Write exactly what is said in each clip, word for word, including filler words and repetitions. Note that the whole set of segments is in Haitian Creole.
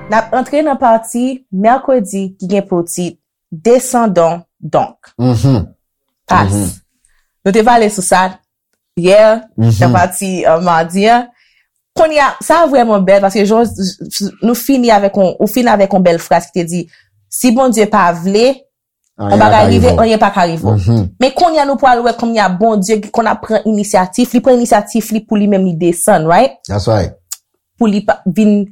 N ap antre nan pati mèkredi ki gen pou tit Descendons donc. Mhm. Pas. Mhm. Nou te pale sou sa yè, Mhm. nan pati uh, madi an. Kounye a, sa vrèman bèl paske jan nou fini avèk on, ou fini avèk on bèl fraz ki te di, si Bondye pa vle, on bagay rive, anyen pa ka rive. Mhm. Men kounye a nou pral wè kounye a Bondye ki konn ap pran inisyativ, li pran inisyativ li pou li menm li desann, right? That's right. Pou li pa- vin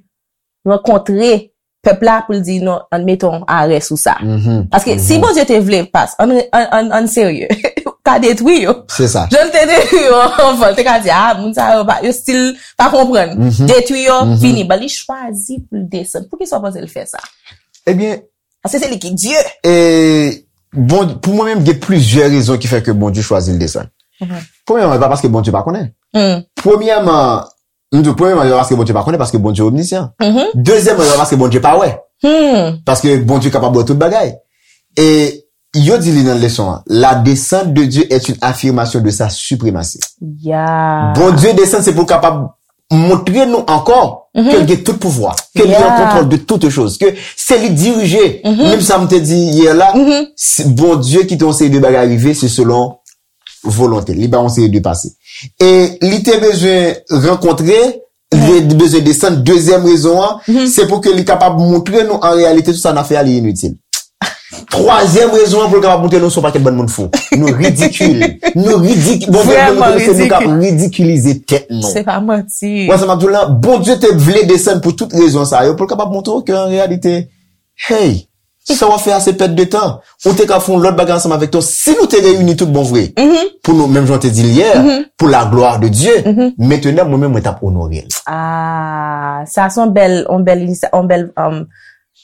rankontre pèp la pou l di non, ann mete yon arè sou sa. Mhm. Paske si Bondye te vle pas, ann, ann, ann, ann serye, ka detwi yo. Se sa. Jan l te detwi yo anvan, l te ka di, ah, moun sa yo, pa- yo still pa konprann. Mhm. Detwi yo, Mhm. fini. Ban li chwazi pou l desann. Poukisa w panse l fè sa? Ebyen, Paske se li ki Dye. e, bon, pou mwen menm, gen plizyè rezon ki fè ke Bondye chwazi l desann. Mhm. Premyèman, e pa paske Bondye pa konnen. Hmm. Premyèman, m di, premyèman, e pa paske Bondye pa konnen, paske Bondye omnisyan. Mhm. Dezyèmman, e pa paske Bondye pa wè. Hmm. Paske Bondye kapab wè tout bagay. E yo di li nan leson an, la descente de Dieu est une affirmation de sa suprématie. Ya. Bondye desann, se pou l kapab montre nou ankò Mhm. ke l gen tout pouvwa, ke li an Yeah. kontwòl de toute chose, ke se li dirije. Mhm. Menm sa m te di yè la, Mhm. si Bondye kite yon seri de bagay rive, se selon volonte. Li ba yon seri de pase. E li te bezwen rankontre, li te bezwen desann. Dezyèm rezon an, Mhm. se pou ke li kapab montre nou an reyalite tout sa n ap fè a li initil. Twazyèm rezon an pou l kapab montre nou se yon pakèt bann moun fou. Nou ridikil. Nou ridikil. Bon, Vrèman nou, nou, nou, nou k ap ridikil. ridikilize tèt nou. Se pa manti. Wè sa m ap di w la, Bondye te vle desann pou tout rezon sa yo, pou l kapab montre w ke an reyalite, hey, sa w ap fè a se pèt de tan. Ou te ka fè yon lòt bagay ansanm avèk tèt ou. Si nou te reyini tout bon vre, Mhm. pou nou, menm jan w te di l yè, Mhm. pou la gloire de Dieu, Mhm. mentnan, mwen menm, mwen t ap onore l. Ah, sa se yon bèl, yon bèl, yon bèl, um,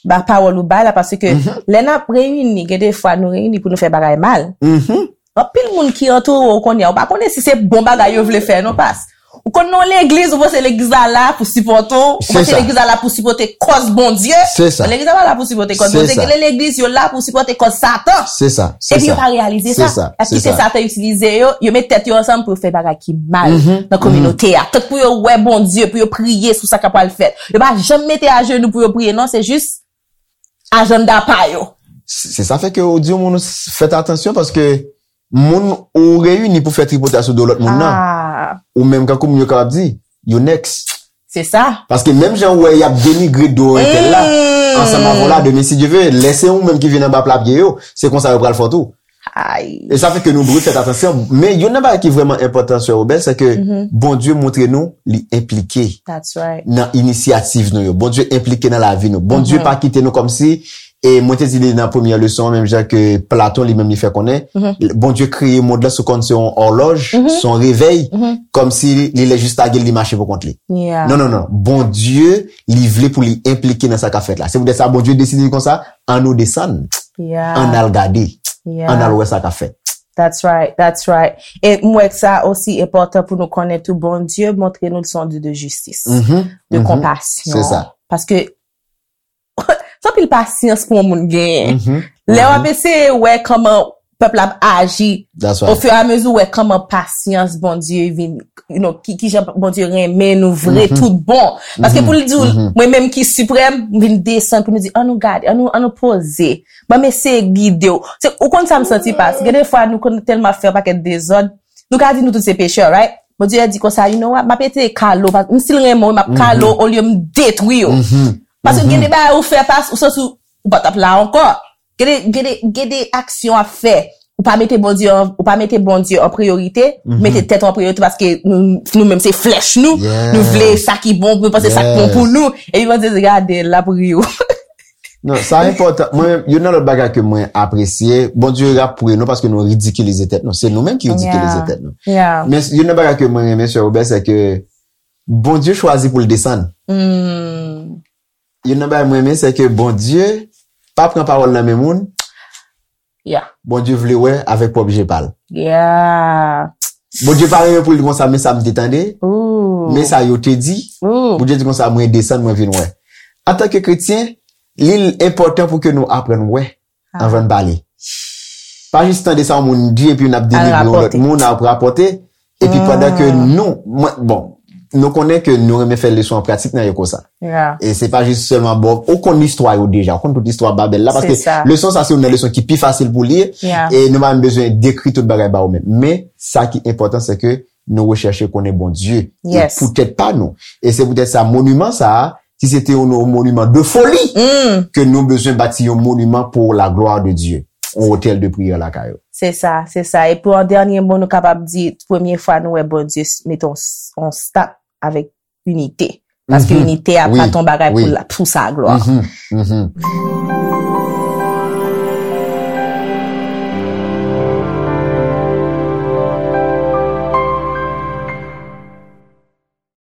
ba pawòl ou bay la, paske Mhm. lè n ap reyini, gen de fwa nou reyini pou nou fè bagay mal. Mhm. Anpil moun ki antoure w kounye a, ou pa konnen si se bon bagay yo vle fè, non, pas. Ou konn nan legliz, ou panse legliz la la pou sipòte w, ou Se panse sa. legliz la la pou sipòte kòz Bondye. Se sa. Legliz la pa la pou sipòte kòz Se Bondye, sa. gen legliz yo la pou sipòte kòz Satan. Se sa. Se Epi yo sa. pa reyalize Se sa. Sa. Y ap Se kite sa. Satan itilize yo, yo met tèt yo ansanm pou yo fè bagay ki mal Mhm. nan kominote a. Tank pou yo wè Bondye, pou yo priye sou sa k ap pral fèt. Yo pa janm mete ajenou pou yo priye, non, se jis ajanda pa yo. Se se sa fè ke ou di yon moun fèt atansyon paske moun ou reyini pou fè tripotay sou do lòt moun nan. Ah, Ou menm kankou moun yo kapab di, you next. se sa. Paske menm jan ou wè y ap denigre do entèl la, Mm. ansanm avè w la, demen si Dye ve, lè se ou menm ki vin anba pla pye yo, se konsa yo pral fè w tou. Ay. E sa fè ke nou dwe fèt atansyon. Men youn nan bagay ki vrèman enpòtan, sè Robert, se ke Mhm. Bondye montre nou li enplike That's right. nan inisyativ nou yo. Bondye enplike nan lavi nou. Bondye Mhm. pa kite nou kòmsi, e mwen te di li nan premyè leson an, menm jan ke Platon li menm li fè konnen, Mhm. Bondye kreye mond lan sou kòm se yon òlòj, Mhm. se yon revèy, Mhm. kòmsi li lè jis lage l, li mache pou kont li. Yeah. Non, non, non. Bondye, li vle pou li enplike nan sa k ap fèt la. Se poutèt sa Bondye deside di konsa, ann nou desann, Yeah. ann al gade, Yeah. ann al wè sa k ap fèt. That's right, that's right. E m wè ke sa osi enpòtan pou nou konnen tou, Bondye montre nou l se yon Dye de jistis, Mhm, de mhm. konpasyon. Se sa. Paske se anpil pasyans pou yon moun genyen. Mhm, Lè w mhm. ap eseye wè kòman pèp la ap aji, That's o right. fur et à mesure, ou wè kòman pasyans Bondye vin, you know, ki, ki jan Bondye renmen nou vre Mhm. tout bon. Paske Mhm, pou l di w, mhm. mwen menm ki siprèm, m vin desann pou nou di, ann nou gade, ann nou, ann nou poze. Ban m eseye gide w. Se, ou konn sa m santi pas. Gen de fwa nou konn tèlman ap fè yon pakèt dezòd, nou ka di nou tout se pechè, right? Bondye di konsa, you know what, m ap eseye kale w, pas m still renmen w, m ap kale w, olye m detwi w. Mhm. Paske gen de bagay ou fè pas, ou santi ou pa t ap la ankò. Gen de, gen de, gen de aksyon ap fè. Ou pa mete Bondye an, ou pa mete Bondye an priyorite, Mhm. mete tèt ou an priyorite paske nou, nou menm se flèch nou, Yes. Nou vle sa ki bon, nou panse sa ki bon Yes. Pou nou. Epi Bondye di, gade, l ap ri w. Non, sa enpòtan. Mwen, youn nan lòt bagay ke mwen apresye, Bondye ap ri nou paske nou ridikilize tèt nou. Se nou menm ki ridikilize Yeah. Tèt nou. Yeah. Men youn nan bagay ke mwen renmen, sè Robert, se ke Bondye chwazi pou l desann. Hmm. Youn nan bagay mwen renmen, se ke Bondye pa pran pawòl nan men moun. Yeah. Bondye vle wè avèk pwòp je pa l. Yeah. Bondye pa renmen pou l di konsa, men sa m te tande, Ooh. men sa yo te di. Ooh. Bondye di konsa, mwen desann, mwen vin wè. Antanke kretyen, li enpòtan pou ke nou aprann wè Ah. anvan n pale. pa jis tande sa yon moun di epi n ap delivre yon lòt rapòte. Moun ap rapòte. Epi pandan ke nou, mwen, bon, nou konnen ke nou renmen fè leson an pratik nan yo konsa. Yeah. E se pa jis sèlman bon, ou konn istwa yo deja, ou konn tout istwa Babèl la, paske Se sa. Leson sa se yon nan leson ki pi fasil pou li, Yeah. E nou pa menm bezwen dekri tout bagay ba ou menm. Men sa ki enpòtan se ke nou rechèche konnen Bondye. Yes. E poutèt pa nou. E se poutèt sa moniman sa a, si se te yon moniman de foli, Mm. ke nou bezwen bati yon moniman pour la gloire de Dieu. Yon otèl de priyè lakay ou. Se sa, se sa. E pou an dènye mo, nou kapab di, premye fwa nou wè Bondye s- mete yon s- yon stop avèk inite. Paske Mhm. inite a Wi, pa ton bagay wi. pou, la- pou sa glwa. Mhm, mhm.